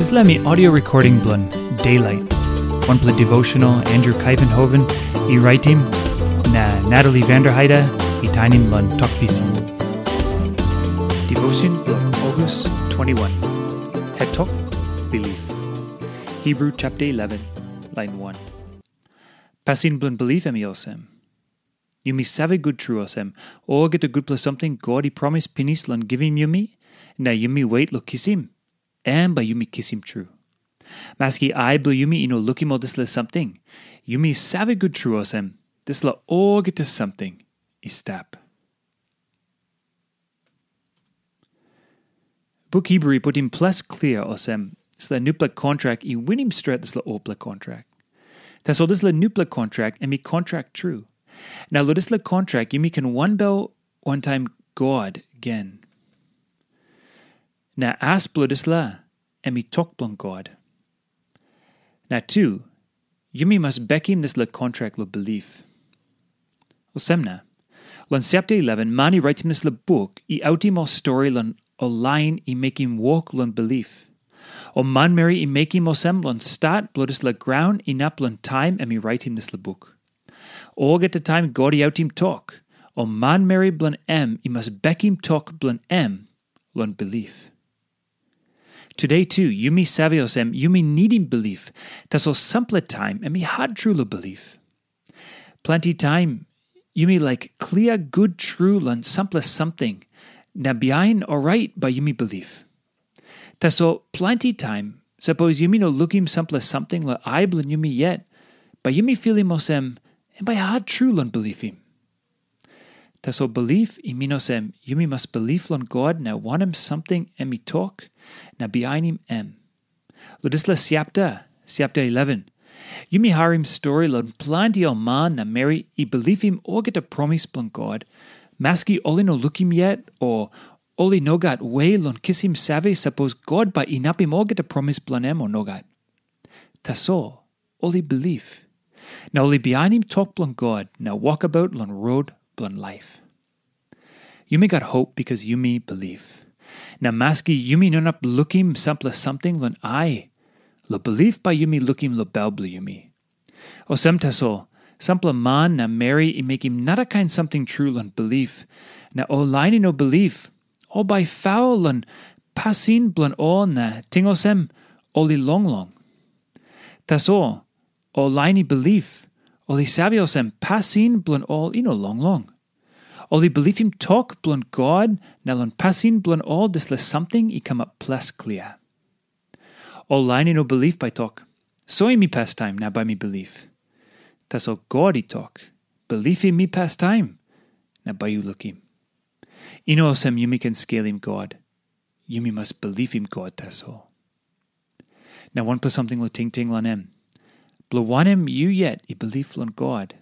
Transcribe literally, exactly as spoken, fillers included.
Dispela mi audio recording bilong Daylight, wanpela devotional Andrew Kaivenhoven i raitim, na Natalie Vanderheide i tainim long Tok Pisin. Devotion bilong August twenty-one. Het tok, bilip. Hebrew chapter eleven, line one. Pasin bilong bilip em i olsem. Yumi save gut tru olsem, olgeta gutpela samting God i promis pinis long givim yumi, na yumi wet long kisim, em bai yumi kisim tru. Maski ai bilong yumi i no lukim ol dispela samting, yumi save gut tru olsem, dispela olgeta samting i stap. Buk Hebrew i putim ples klia olsem, dispela nupela kontrak i winim stret dispela olpela kontrak. Tasol dispela nupela kontrak em i kontrak tru. Na long dispela kontrak yumi ken wanbel wantaim God gen. Na as bilong dispela, em i tok bilong God. Na tu, yumi mas bekim dispela kontrak long bilip. Olsem na, long chapter eleven, man i raitim dispela buk i autim ol stori long ol lain i mekim wok long bilip. Ol manmeri i mekim olsem long stat bilong dispela graun inap long taim em i raitim dispela buk. Olgeta taim God i autim tok, ol manmeri bilong em i mas bekim tok bilong em long bilip. Tude tu, yumi save olsem yumi nidim bilip, tasol sampela taim em i hat tru long bilip. Planti taim, yumi laik klia gut tru long sampela samting, na bihain orait bai yumi bilip. Tasol planti taim, sapos yumi no lukim sampela samting long ai bilong yumi yet, bai yumi filim olsem, em bai hat tru long bilipim. Tasol bilip i min olsem, yumi mas bilip long God na wanem samting em i tok, na bihainim em. Long dispela chapter, chapter eleven, yumi harim stori long planti ol man na meri i bilipim olgeta promis bilong God, maski ol i no lukim yet, o ol i no gat we long kisim save sapos God bai inapim olgeta promis bilong em o nogat. Tasol, ol i bilip. Na ol i bihainim tok bilong God na wokabaut long rot bilong laip. Yumi gat hop bikas yumi bilip. Na maski yumi no inap lukim sampela samting long ai, long bilip bai yumi lukim long bel bilong yumi. Olsem tasol, sampela man na meri i mekim narakain samting tru long bilip, na ol lain i no bilip, ol bai faul long pasin bilong ol na ting olsem, ol i longlong. Tasol, ol lain i bilip, ol i save olsem pasin bilong ol i no longlong. Ol i bilipim tok bilong God na long pasin bilong ol dispela samting i kamap ples klia. Ol lain i no bilip bai tok, soim mi pastaim na bai mi bilip. Tasol God i tok, bilipim mi pastaim na bai yu lukim. I no olsem yumi ken skelim God. Yumi mas bilipim God tasol. Na wanpela samting long tingting long em. Bilong wanem yu yet i bilip long God?